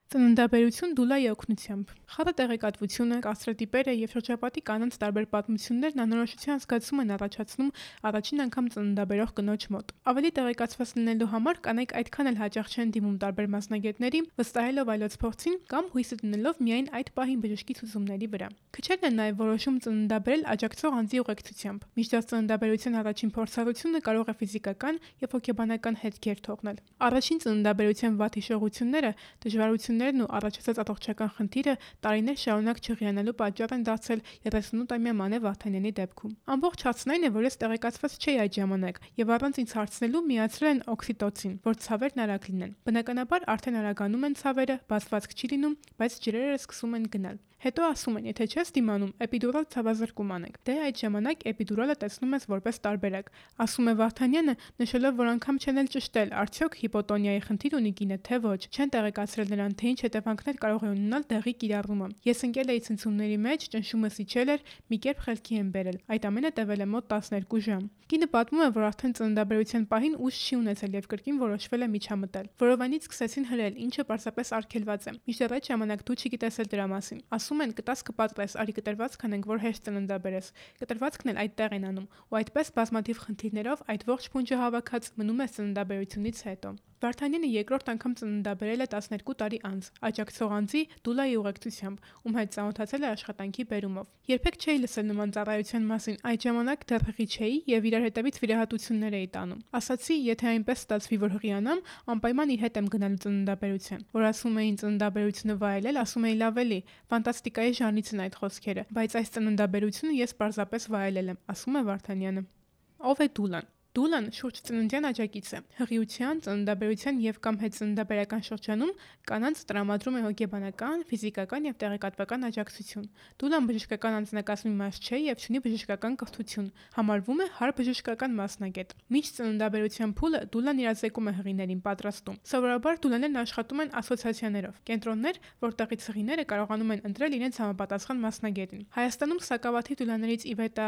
Ծննդաբերություն դուլայի օգնությամբ։ Խառը տեղեկատվությունը, կարծրատիպերը եւ շրջապատի կանանց տարբեր պատմություններն անորոշության զգացում են առաջացնում առաջին անգամ ծննդաբերող կնոջ մոտ։ Ավելի տեղեկացված լինելու համար կանայք այդքան էլ հաճախ չեն դիմում տարբեր մասնագետների, վստահելով այլոց փորձին կամ հույսը դնելով միայն այդ պահին բժշկի ցուցումների վրա։ Քչերն են նաեւ որոշում ծննդաբերել աջակցող անձի ուղեկցությամբ։ Մինչդեռ ծննդաբերության առաջին փորձառությունը կարող է ֆիզիկական եւ հոգեբանական հետքեր թողնել։ Առաջին ծննդաբերության վատ հիշողությունները, դժվարություններն ու առաջացած առողջական խնդիրը տարիներ շարունակ չհիանալու պատճառ են դարձել 38-ամյա Մանե Վարդանյանի դեպքում։ Ամբողջ հարցն այն է, որ ես տեղեկացված չէի այդ ժամանակ եւ առանց ինձ հարցնելու միացրել են օքսիտոցին, որ ցավերն արագ լինեն։ Բնականաբար արդեն արագանում են ցավերը, բացվածք չի լինում, բայց ջրերը սկսում են գնալ։ Հետո ասում են, եթե չես դիմանում, էպիդուրալ ցավազրկում անենք։ Դե այդ ժամանակ էպիդուրալը տեսնում ես որպես տարբերակ։ Ասում է Վարդանյանը, նշելով, որ անգամ չեն էլ ճշտել, արդյոք հիպոտոնիայի խնդիր ունի կինը, թե ոչ։ Չեն տեղեկացրել նրան, թե ինչ հետևանքներ կարող է ունենալ դեղի կիրառումը։ Ես ընկել էի ցնցումների մեջ, ճնշումս իջել էր, մի կերպ խելքի եմ բերել։ Այդ ամենը տևել է մոտ 12 ժամ։ Կինը պատմում է, որ արդեն ծննդաբերության պահին ուժ չի ունեցել եւ կրկին որոշվել է միջամտել։ Որովայնից սկսեցին հրել, ինչը պարզապես արգելված է։ Մինչդեռ այդ ժամանակ դու չգիտես էլ դրա մասին։ Ասում են կտաս կպատրես, արի կտրվածք անենք, որ հեշտ ծննդաբերես։ Կտրվածքն էլ այդտեղ են անում, ու այդպես բազմաթիվ խնդիրներով այդ ողջ փունջը հավաքած մնում է ծննդաբերությունից հետո։ Վարդանյանը երկրորդ անգամ ծննդաբերել է 12 տարի անց, աջակցող անձի դուլայի ուղեկցությամբ, ում հետ ծանոթացել է աշխատանքի բերումով։ Երբեք չէի լսել նման ծառայության մասին, այդ ժամանակ դեռ հղի չէի եւ իրար հետևից վիրահատություններ էի տանում։ Ասացի, եթե այնպես ստացվի, որ հղիանամ, անպայման իր հետ եմ գնալու ծննդաբերության։ Որ ասում էին ծննդաբերությունը վայելել, ասում էի լավ էլի, ֆանտաստիկայի ժանրից են այդ խոսքերը, բայց այս ծննդաբերությունը ես պարզապես վայելել եմ, ասում է Վարդանյանը։ Ով է դուլան։ Դուլան շուրջ ծննդյան աջակից է։ Հղիության, ծննդաբերության եւ կամ հետծննդաբերական շրջանում կանանց տրամադրում է հոգեբանական, ֆիզիկական եւ տեղեկատվական աջակցություն։ Դուլան բժշկական անձնակազմի մաս չէ եւ չունի բժշկական կրթություն, համարվում է հարբժշկական մասնագետ։ Մինչ ծննդաբերության փուլը դուլան իրազեկում է հղիներին պատրաստում։ Սովորաբար դուլաներն աշխատում են ասոցիացիաներով, կենտրոններ, որտեղից հղիները կարողանում են ընտրել իրենց համապատասխան մասնագետին։ Հայաստանում սակավաթիվ դուլաներից Իվետա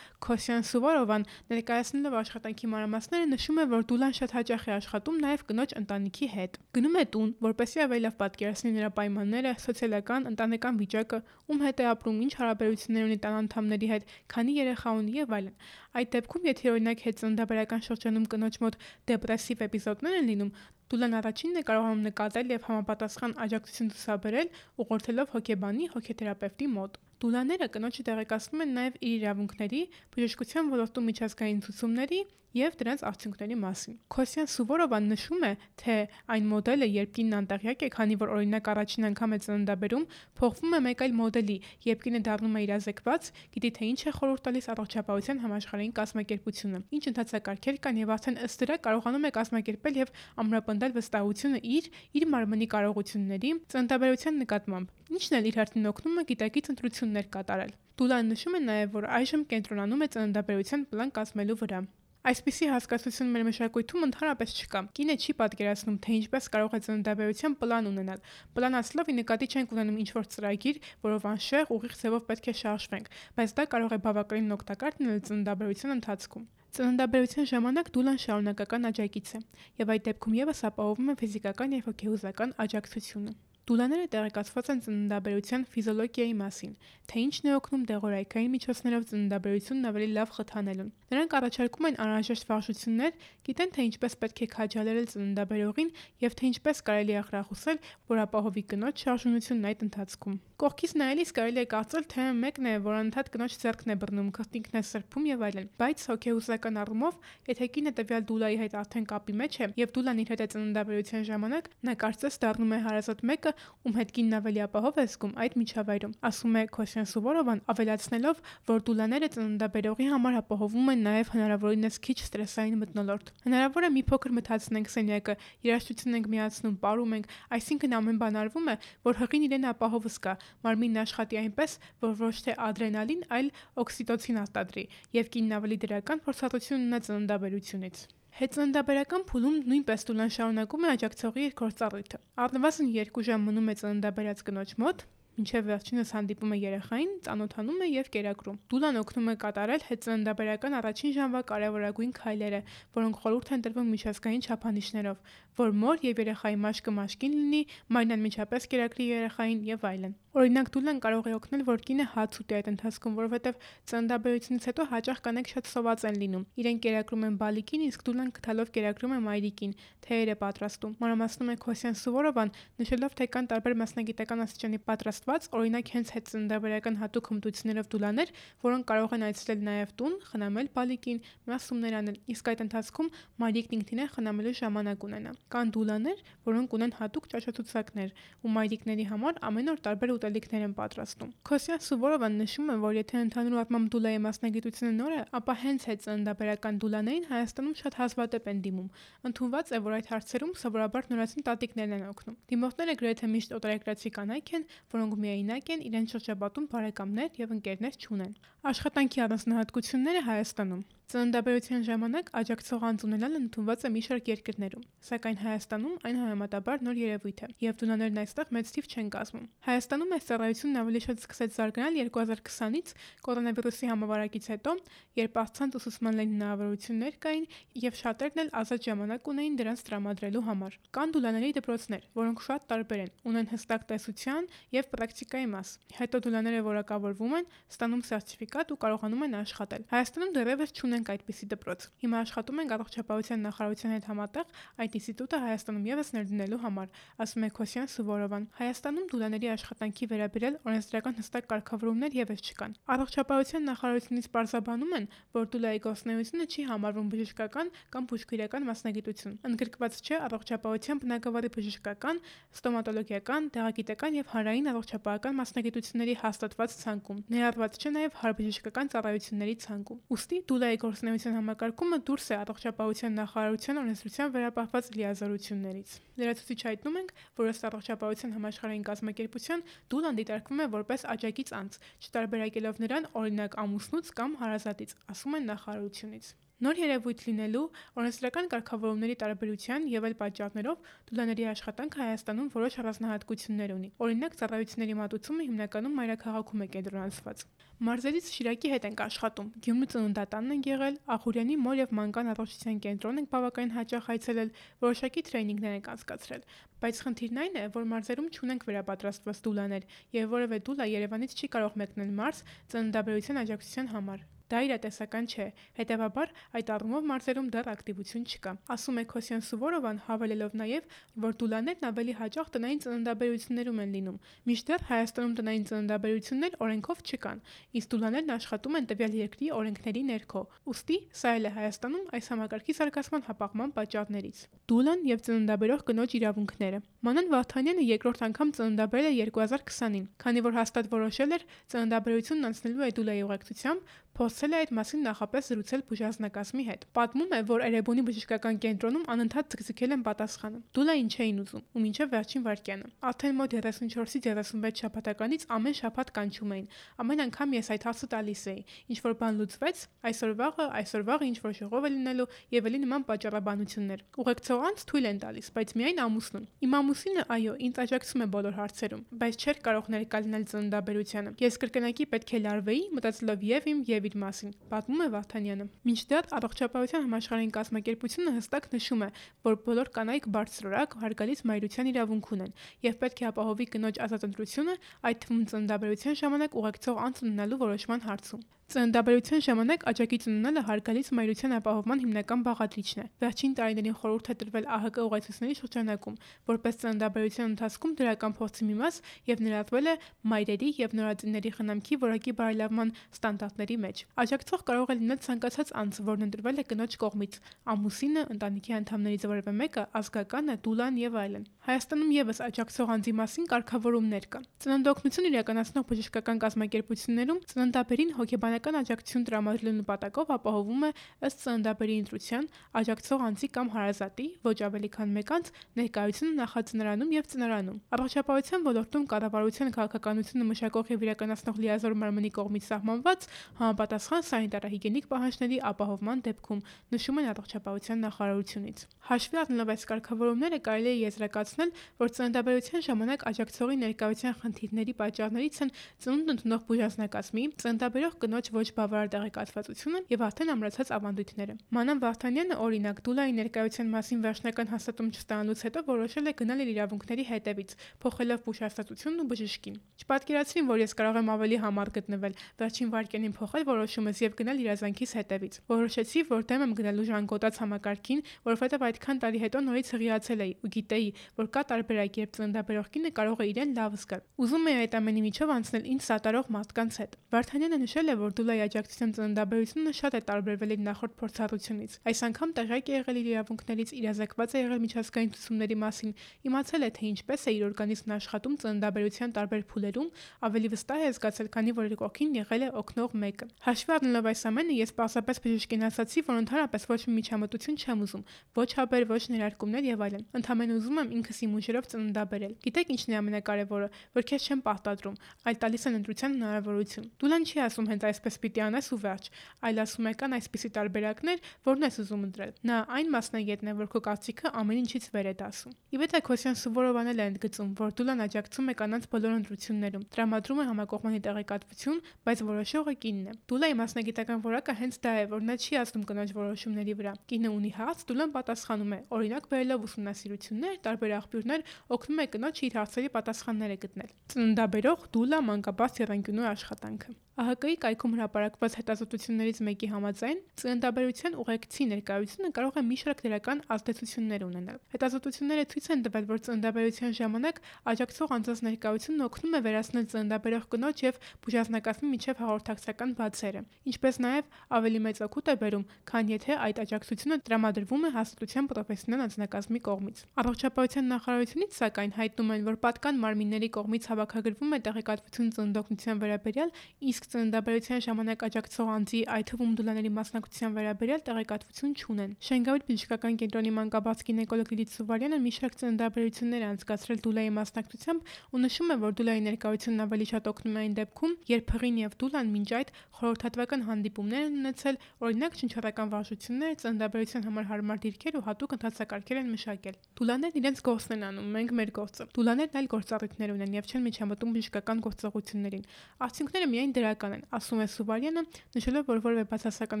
Քոսյան-Սուվորովան ներկայացնելով աշխատանքի մանրամասները նշում է, որ դուլան շատ հաճախ է աշխատում նաև կնոջ ընտանիքի հետ։ Գնում է տուն, որպեսզի ավելի լավ պատկերացնի նրա պայմանները, սոցիալական, ընտանեկան վիճակը, ում հետ է ապրում, ինչ հարաբերություններ ունի տան անդամների հետ, քանի երեխա ունի եւ այլն։ Այդ դեպքում, եթե օրինակ հետծննդաբերական շրջանում կնոջ մոտ դեպրեսիվ էպիզոդներ են լինում, դուլան առաջինն է կարողանում նկատել եւ համապատասխան աջակցություն ցուցաբերել, ուղղորդելով հոգեբանի, հոգեթերապևտի մոտ։ Դուլաները կնոջը տեղեկացնում են նաև իր իրավունքների, բժշկության ոլորտում միջազգային ցուցումների եւ դրանց արդյունքների մասին։ Քոսյան Սուվորովան նշում է, թե այն մոդելը, երբ կինն անտեղյակ է, քանի որ օրինակ առաջին անգամ է ծննդաբերում, փոխվում է մեկ այլ մոդելի, երբ կինը դառնում է իրազեկված, գիտի թե ինչ է խորհուրդ տալիս առողջապահության համաշխարհային կազմակերպությունը, ինչ ընթացակարգեր կան եւ արդեն ըստ դրա կարողանում է կազմակերպել եւ ամրապնդել վստահությունը իր մարմնի կարողությունների, ծննդաբերության նկատմամբ։ Ինչն էլ իր հերթին օգնում է գիտակից ընտրություններ կատարել։ Դուլան նշում է նաև, որ այժմ կենտրոնանում է ծննդաբերության պլան կազմելու վրա։ Այսպիսի հասկացություն մեր մշակույթում ընդհանրապես չկա։ Կինը չի պատկերացնում, թե ինչպես կարող է ծննդաբերության պլան ունենալ։ Պլան ասելով ի նկատի չենք ունենում ինչ-որ ծրագիր, որով անշեղ ուղիղ ձևով պետք է շարժվենք, բայց դա կարող է բավականին օգտակար լինել ծննդաբերության ընթացքում։ Ծննդաբերության ժամանակ դուլան շարունակական աջակից է, եւ այդ դեպքում եւս ապահովում է ֆիզիկական եւ հոգեհուզական աջակցությունը։ Դուլաները տեղեկացված են ծննդաբերության ֆիզիոլոգիայի մասին, թե ինչն է օգնում դեղորայքային միջոցներով ծննդաբերությունն ավելի լավ խթանելուն։ Նրանք առաջարկում են անհրաժեշտ վարժություններ, գիտեն թե ինչպես պետք է քաջալերել ծննդաբերողին եւ թե ինչպես կարելի է ախրախուսել, որ ապահովի կնոջ շարժունությունն այդ ընթացքում։ Կողքից նայելիս կարելի է կարծել, թե մեկն է, որ անընդհատ կնոջ ձեռքն է բռնում, քրտինքն է սրբում եւ այլն, բայց հոգեհուզական առումով, եթե կինը տվյալ դուլայի հետ արդեն կապի մեջ է եւ դուլան իր հետ է ծննդաբերության ժամանակ, նա կարծես դառնում է հարազատ մեկը, ում հետ կինն ավելի ապահով է զգում այդ միջավայրում, ասում է Քոսյան Սուվորովան, ավելացնելով, որ դուլաները ծննդաբերողի համար ապահովում են նաև հնարավորինս քիչ ստրեսային մթնոլորտ։ Հնարավոր է մի փոքր մթացնենք սենյակը, երաժշտություն ենք միացնում, պարում ենք, այսինքն ամեն բան արվում է, որ հղին իրեն ապահով զգա, մարմինն աշխատի այնպես, որ ոչ թե ադրենալին, այլ օքսիտոցին արտադրի, եւ կինն ավելի դրական փորձառություն ունենա ծննդաբերությունից։ Հետծննդաբերական փուլում նույնպես դուլան շարունակում է աջակցողի իր գործառույթը։ Առնվազն 2 ժամ մնում է ծննդաբերած կնոջ մոտ, մինչև վերջինս հանդիպում է երեխային, ծանոթանում է եւ կերակրում։ Դուլան օգնում է կատարել հետծննդաբերական առաջին ժամվա կարևորագույն քայլերը, որոնք խորհուրդ են տրվում միջազգային չափանիշներով, որ մոր եւ երեխայի մաշկը մաշկին լինի, մայրն անմիջապես կերակրի երեխային եւ այլն։ Օրինակ դուլան կարող է օգնել, որ կինը հաց ուտի այդ ընթացքում, որովհետեւ ծննդաբերությունից հետո հաճախ կանայք շատ սոված են լինում։ Իրենք կերակրում են բալիկին, իսկ դուլան գտալով կերակրում է մայրիկին, թեյեր է պատրաստում։ Մանրամասնում է Քոսյան Սուվորովան, նշելով, թե կան տարբեր մասնագիտական աստիճանի պատրաստված, օրինակ հենց հետ ծննդաբերական հատուկ հմտություններով դուլաներ, որոնք կարող են այցելել նաեւ տուն, խնամել բալիկին, մասումներ անել, իսկ այդ ընթացքում մայրիկն ինքնին է խնամելու ժամանակ ունենա։ Կան դուլաներ, որոնք ունեն հատուկ ճաշացուցակներ, ու մայրիկների համար ամեն օր տարբեր ուտելիքներ են պատրաստում։ Քոսյան Սուվորովան նշում է, որ եթե ընդհանուր առմամբ դուլայի մասնագիտությունը նոր է, ապա հենց այդ ծննդաբերական դուլաներին Հայաստանում շատ հազվադեպ են դիմում։ Ընդունված է, որ այդ հարցերում սովորաբար նորածին տատիկներն են օգնում։ Դիմորդները գրեթե միշտ օտարերկրացի կանայք են, որոնք միայնակ են, իրենց շրջապատում բարեկամներ եւ ընկերներ չունեն։ Աշխատանքի առանձնահատկությունները Հայաստանում։ Ծննդաբերության ժամանակ աջակցող անձ ունենալը ընդունված է մի շարք երկրներում, սակայն Հայաստանում այն համեմատաբար նոր երևույթ է, եւ դունաներն այստեղ մեծ թիվ չեն կազմում։ Հայաստանում այս ծառայությունն ավելի շատ սկսեց զարգանալ 2020-ից կորոնավիրուսի համավարակից հետո, երբ առցանց ուսուցման լայն հնարավորություններ կային եւ շատերն էլ ազատ ժամանակ ունեին դրանց տրամադրելու համար։ Կան դուլաների դպրոցներ, որոնք շատ տարբեր են, ունեն հստակ տեսության եւ պրակտիկայի մաս։ Հետո դուլաները որակավորվում են, ստանում սերտիֆիկատ ու կարողանում են աշխատել։ Հայաստանում դեռևս չունենք այդպիսի դպրոց։ Հիմա աշխատում ենք առողջապահության նախարարության հետ համատեղ այդ ինստիտուտը Հայաստանում եւս ներդնելու համար, ասում է Քոսյան Սուվորովան։ Հայաստանում դուլաների աշխատանքի վերաբերյալ օրենսդրական հստակ կարգավորումներ եւս չկան։ Առողջապահության նախարարությունից պարզաբանում են, որ դուլայի գործունեությունը չի համարվում բժշկական կամ բուժքիրական մասնագիտություն։ Ընդգրկված չէ առողջապահության բնագավառի բժշկական, ստոմատոլոգիական, դեղագիտական եւ հանրային առողջապահական մասնագիտությունների հաստատված ցանկում։ Ներառված չէ նաեւ հարբժշկական ծառայությունների ցանկում։ Ուստի դուլայի գործունեության համակարգումը դուրս է առողջապահության նախարարության օրենսդրությամբ վերապահված լիազորություններից։ Լրացուցիչ հայտնում ենք, որ ըստ առողջապահության համաշխարհային կազմակերպության դուլան դիտարկվում է որպես աջակից անձ, չտարբերակելով նրան օրինակ ամուսնուց կամ հարազատից, ասում են նախարարությունից։ Նոր երևույթ լինելու, օրենսդրական կարգավորումների տարբերության եւ այլ պատճառներով դուլաների աշխատանքը Հայաստանում որոշ առանձնահատկություններ ունի։ Օրինակ ծառայությունների մատուցումը հիմնականում մայրաքաղաքում է կենտրոնացված։ Մարզերից Շիրակի հետ ենք աշխատում։ Գյումրու ծննդատանն ենք եղել, Ախուրյանի մոր եւ մանկան առողջության կենտրոն ենք բավականին հաճախ այցելել, որոշակի տրեյնինգներ ենք անցկացրել։ Բայց խնդիրն այն է, որ մարզերում չունենք վերապատրաստված դուլաներ եւ որևէ դուլա Երևանից չի կարող մեկնել մարզ ծննդաբերության աջակցության համար։ Դա իրատեսական չէ, հետևաբար այդ առումով մարզերում դեռ ակտիվություն չկա, ասում է Քոսյան Սուվորովան, հավելելով նաև, որ դուլաներն ավելի հաճախ տնային ծննդաբերություններում են լինում, մինչդեռ Հայաստանում տնային ծննդաբերություններ օրենքով չկան, իսկ դուլաներն աշխատում են տվյալ երկրի օրենքների ներքո, ուստի սա էլ է Հայաստանում այս համակարգի զարգացման հապաղման պատճառներից։ Դուլան եւ ծննդաբերող կնոջ իրավունքները։ Մանան Վահթանյանը երկրորդ անգամ ծննդաբերել է 2020-ին, քանի որ հաստատ որոշել էր ծննդաբերությունն անցնելու է դուլայի ուղեկցությամբ, փորձել է այդ մասին նախապես զրուցել բուժանձնակազմի հետ։ Պատմում է, որ Էրեբունի բժշկական կենտրոնում անընդհատ ձգձգել են պատասխանը։ Դուլային չէին ուզում, ու մինչև վերջին վայրկյանը։ Արդեն մոտ 34-ից 36 շաբաթականից ամեն շաբաթ կանչում էին։ Ամեն անգամ ես այդ հարցը տալիս էի։ Ինչ որ բան լուծվեց, այսօր վաղը ինչ որ ժողով է լինելու եւ էլի նման պատճառաբանություններ։ Ուղեկցող անձ թույլ են տալիս, բայց միայն ամուսնուն։ Իմ ամուսինը, այո, ինձ աջակցում է բոլոր հարցերում, բայց չէր կարող ներկա լինել ծննդաբերությանը։ Ես կրկնակի պետք է լարվեի, մտածելով եւ իմ եւ իր մասին, պատմում է Վահթանյանը։ Մինչդեռ առողջապահության համաշխարհային կազմակերպությունը հստակ նշում է, որ բոլոր կանայք բարձրորակ հարգալից մայրության իրավունք ունեն եւ պետք է ապահովի կնոջ ազատ ընտրությունը, այդ թվում ծննդաբերության ժամանակ ուղեկցող անձ ունենալու որոշման հարցում։ Ծննդաբերության ժամանակ աջակից ունենալը հարգալից մայրության ապահովման հիմնական բաղադրիչն է։ Վերջին տարիներին խորհուրդ է տրվել ԱՀԿ ուղեցույցների շրջանակում, որպես ծննդաբերության ընթացքում դրական փորձի մի մաս եւ ներառվել է մայրերի եւ նորածինների խնամքի որակի բարելավման ստանդարտների մեջ։ Աջակցող կարող է լինել ցանկացած անձ, որն ընտրվել է կնոջ կողմից՝ ամուսինը, ընտանիքի անդամներից որևէ մեկը, ազգականը, դուլան եւ այլն։ Հայաստանում եւս աջակցող անձի մասին կարգավորումներ կան։ Ծննդօգնություն իրականացնող բժշկական կազմակերպություններում ծննդաբերին հոգեբանական աջակցություն տրամադրելու նպատակով ապահովում է ըստ ծննդաբերի ընտրության աջակցող անձի կամ հարազատի ոչ ավելի քան մեկ անձ ներկայությունը նախածնարանում եւ ծնարանում։ Առողջապահության ոլորտում կառավարության քաղաքականությունը մշակող եւ իրականացնող լիազոր մարմնի կողմից սահմանված համապատասխան սանիտարահիգիենիկ պահանջների ապահովման դեպքում, նշում են առողջապահության նախարարությունից։ Հաշվի առնելով այս կարգավորումները կարելի է եզրակացնել, որ ծննդաբերության ժամանակ աջակցողի ներկայության խնդիրների պատճառներից են ծնունդ ընդունող բուժանձնակազմի, ծննդաբերող կնոջ ոչ բավարար տեղեկատվությունը եւ արդեն ամրացած ավանդույթները։ Մանան Վարդանյանը օրինակ Դուլայի ներկայության մասին վերջնական հաստատում չստանալուց հետո որոշել է գնալ իր իրավունքների հետևից, փոխելով բուժհաստատությունն ու բժշկին։ Չպատկերացրին, որ ես կարող եմ ավելի համառ գտնվել, վերջին վայրկյանին փոխել որոշումս եւ գնալ իրազանքիս հետևից։ Որոշեցի, որ դեմ եմ գնալու ժանգոտած համակարգին, որովհետեւ այդքան տարի հետո նորից հղիացել էի ու գիտեի, որ կա տարբերակ, երբ ծննդաբերող կինը կարող է իրեն լավ զգալ։ Ուզում էի այդ ամենի միջով անցնել ինձ սատարող մարդկանց հետ։ Վարդանյանը նշել է, որ Դուլայի աջակցության ծննդաբերությունը շատ է տարբերվել իր նախորդ փորձառությունից։ Այս անգամ տեղյակ է եղել իր իրավունքներից, իրազեկված է եղել միջազգային ցուցումների մասին, իմացել է, թե ինչպես է իր օրգանիզմն աշխատում ծննդաբերության տարբեր փուլերում, ավելի վստահ է զգացել, քանի որ իր կողքին եղել է օգնող մեկը։ Հաշվի առնելով այս ամենը, ես պարզապես բժշկին ասացի, որ ընդհանրապես ոչ մի միջամտություն չեմ ուզում, ոչ հաբեր, ոչ ներարկումներ եւ այլն։ Ընդհանրապես ուզում եմ ինքս իմ ուժերով ծննդաբերել։ Գիտեք ինչն է ամենակարևորը, որ քեզ չեմ պարտադրում, այլ տալիս են ընտրության հնարավորություն։ Դուլան չի ասում հենց այսպես պիտի անես ու վերջ, այլ ասում է կան այսպիսի տարբերակներ, որն ես ուզում ընտրել։ Նա այն մասնագետն է, որ քո կարծիքը ամեն ինչից վեր է դասում։ Իվետա Քոսյան Սուվորովան էլ է ընդգծում, որ Դուլան աջակցում է կանանց բոլոր ընտրություններում, տրամադրում է համակողմանի տեղեկատվություն, բայց որոշողը կինն է։ Դուլայի մասնագիտական որակը հենց դա է, որ նա չի ասում կնոջ որոշումների վրա։ Կինը ունի հարց, Դուլան պատասխանում է, օրինակ բերելով ուսումնասիրություններ, տարբեր աղբյուրներ, օգնում է կնոջ իր հարցերի պատասխանները գտնել։ Ծննդաբերող Դուլա մանկաբարձ եռանկյունու աշխատանքը։ ԱՀԿ-ի կայքում հրապարակված հետազոտություններից մեկի համաձայն ծննդաբերության ուղեկցի ներկայությունը կարող է մի շարք դրական ազդեցություններ ունենալ։ Հետազոտությունները ցույց են տվել, որ ծննդաբերության ժամանակ աջակցող անձանց ներկայությունն օգնում է վերացնել ծննդաբերող կնոջ եւ բուժազնակազմի միջև հաղորդակցական բացերը, ինչպես նաեւ ավելի մեծ օգուտ է բերում, քան եթե այդ աջակցությունը տրամադրվում է հաստատության պրոֆեսիոնալ անձնակազմի կողմից։ Առողջապահության նախարարությունից սակայն հայտնում են, որ պատկան մարմինների կողմից հավաքագրվում է տեղեկատվություն ծննդօգնության վերաբերյալ, իսկ ծննդաբերության ժամանակ աջակցող անձի, այդ թվում Դուլաների մասնակցության վերաբերյալ տեղեկատվություն չունեն։ Շենգավիթ բժշկական կենտրոնի մանկաբարձ գինեկոլոգ Լիլիթ Սուվարյանը մի շարք ծննդաբերություններ է անցկացրել Դուլայի մասնակցությամբ ու նշում է, որ Դուլայի ներկայությունն ավելի շատ օգնում է այն դեպքում, երբ հղին եւ Դուլան մինչ այդ խորհրդատվական հանդիպումներ են ունեցել, օրինակ շնչառական վարժություններ, ծննդաբերության համար հարմար դիրքեր ու հատուկ ընթացակարգեր են մշակել։ Դուլաներն իրենց գործն են անում, մենք մեր գործը։ Դուլաներն այլ գործառույթներ ունեն եւ չեն միջամտում բժշկական գործողություններին։ Արդյունքները միայն դրական են, ասում է Սուվարյանը, նշելով, որ որևէ բացասական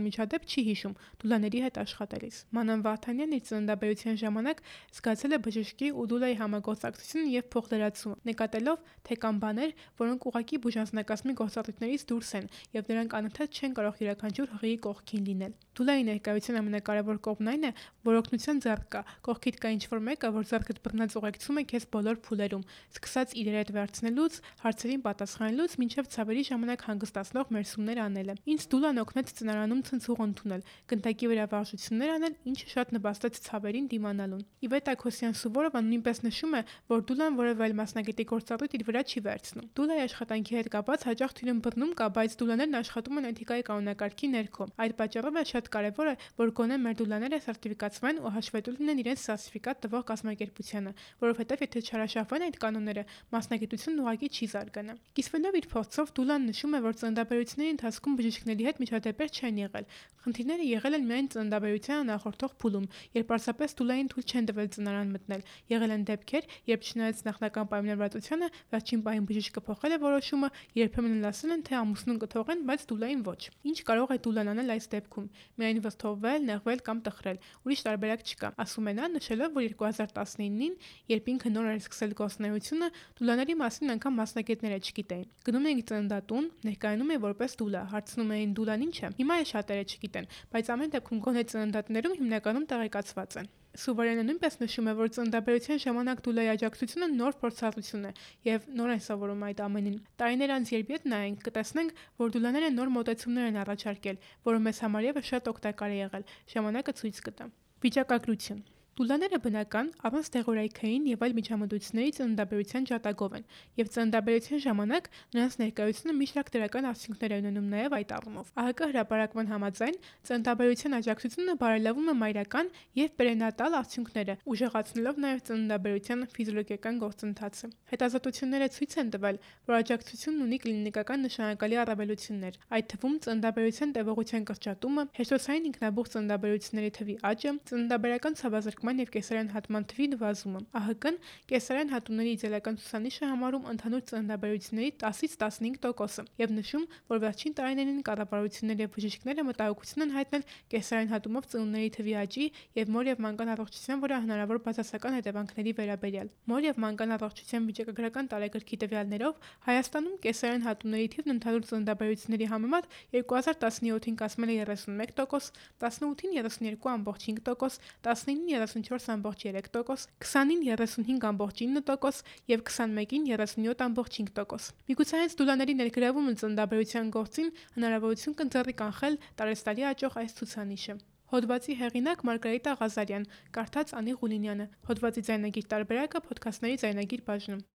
միջադեպ չի հիշում Դուլաների հետ աշխատելիս։ Մանան Վարդանյանն իր ծննդաբերության ժամանակ զգացել է բժշկի ու Դուլայի համագործակցությունը եւ փոխլրացումը, նկատելով, թե կան բաներ, որոնք ուղղակի բուժանձնակազմի գործառույթներից դուրս են եւ նրանք անընդհատ չեն կարող յուրաքանչյուր հղիի կողքին լինել։ Դուլայի ներկայության ամենակարևոր կողմն այն է, որ օգնության ձեռք կա, կողքիդ կա ինչ-որ մեկը, որ ձեռքդ բռնած ուղեկցում է քեզ բոլոր փուլերում, սկսած իրեր հետ վերցնելուց, հարցերին պատասխանելուց, մինչև ցավերի ժամանակ հանգստացնող մերսումներ անելը։ Ինձ Դուլան օգնեց ծնարանում ցնցուղ ընդունել, գնդակի վրա վարժություններ անել, ինչը շատ նպաստեց ցավերին դիմանալուն։ Իվետա Քոսյան Սուվորովան նույնպես նշում է, որ Դուլան որևէ այլ մասնագետի գործառույթ իր վրա չի վերցնում։ Դուլայի աշխատանքի հետ կապված հաճախ թյուրին բռնում կա, բայց դուլաներն աշխատում են էթիկայի կանոնակարգի ներքո։ Այդ պատճառով է շատ կարևոր է, որ գոնե մեր դուլաները սերտիֆիկացվեն ու հաշվետու լինեն իրենց սերտիֆիկատ տվող կազմակերպությանը, որովհետև եթե չհրաշավեն այդ կանոնները, մասնագիտությունն ուղղակի չի զարգանա։ Կիսվելով իր փորձով Դուլան նշում է, որ ծննդաբերությունների ընթացքում բժիշկների հետ միջադեպեր չեն եղել։ Խնդիրները եղել են միայն ծննդաբերությանը նախորդող փուլում, երբ պարզապես Դուլային թույլ չեն տվել ծնարան մտնել։ Եղել են դեպքեր, երբ չնայած նախնական պայմանավորվածությանը, վերջին պահին բժիշկը փոխել է որոշումը, երբեմն ասել են, թե ամուսնուն կթողեն, բայց Դուլային ոչ։ Ինչ կարող է Դուլան անել այս դեպքում։ Միայն վստահվել, նեղվել կամ տխրել։ Ուրիշ տարբերակ չկա, ասում է նա, նշելով, որ 2019-ին, երբ ինքը նոր էր սկսել գործունեությունը, դուլաների մասին անգամ մասնագետները չգիտեին։ Գնում էինք ծննդատուն, ներկայանում է որպես դուլա, հարցնում էին դուլան ինչ է։ Հիմա է շատերը չգիտեն, բայց ամեն դեպքում գոնե ծննդատներում հիմնականում տեղեկացված են։ Սուվարյանը նույնպես նշում է, որ ծննդաբերության ժամանակ դուլայի աջակցությունը նոր փորձառություն է եւ նոր են սովորում այդ ամենին։ Տարիներ անց երբ ետ նայենք, կտեսնենք, որ դուլաները նոր մոտեցումներ են առաջարկել, որը մեզ համար եւս շատ օգտակար է եղել։ Ժամանակը ցույց կտա։ Վիճակագրություն։ Դուլաները բնական, առանց դեղորայքային եւ այլ միջամտությունների ծննդաբերության ջատագով են, եւ ծննդաբերության ժամանակ նրանց ներկայությունը մի շարք դրական արդյունքներ է ունենում նաեւ այդ առումով։ ԱՀԿ հրապարակման համաձայն ծննդաբերության աջակցությունը բարելավում է մայրական եւ պերենատալ արդյունքները, ուժեղացնելով նաեւ ծննդաբերության ֆիզիոլոգիական գործընթացը։ Հետազոտությունները ցույց են տվել, որ աջակցությունն ունի կլինիկական նշանակալի առավելություններ, այդ թվում ծննդաբերության տևողության կրճատումը, հեշտոցային ինքնաբուխ ծննդաբերությունների թվի աճը, ծննդաբերական ցավազրկման բացակայման և կեսարյան հատման թվի նվազումը։ ԱՀԿ-ն կեսարյան հատումների իդեալական ցուցանիշը համարում ընդհանուր ծննդաբերությունների 10-ից 15%-ը և նշում, որ վերջին տարիներին կառավարությունները և բժիշկները մտահոգություն են հայտնել կեսարյան հատումով ծնունդների թվի աճի և մոր և մանկան առողջության վրա հնարավոր բացասական հետևանքների վերաբերյալ։ Մոր և մանկան առողջության վիճակագրական տարեգրքի տվյալներով Հայաստանում կեսարյան հատումների թիվն ընդհանուր ծննդաբերությունների համեմատ 2017-ին կազմել է 31%, 18-ին 32.5%, 19-ին 34.3%, 20-ին 35.9% և 21-ին 37.5%։ Միգուցե հենց դոլարների ներգրավումը ծննդաբերության գործին հնարավորություն կընձեռի կանխել տարեցտարի աճող այս ցուցանիշը։ Հոդվածի հեղինակ Մարգարիտա Ղազարյան, կարդաց Անի Ղուլինյանը, հոդվածի ձայնագիր տարբերակը Փոդքասթների ձայնագիր բաժնում։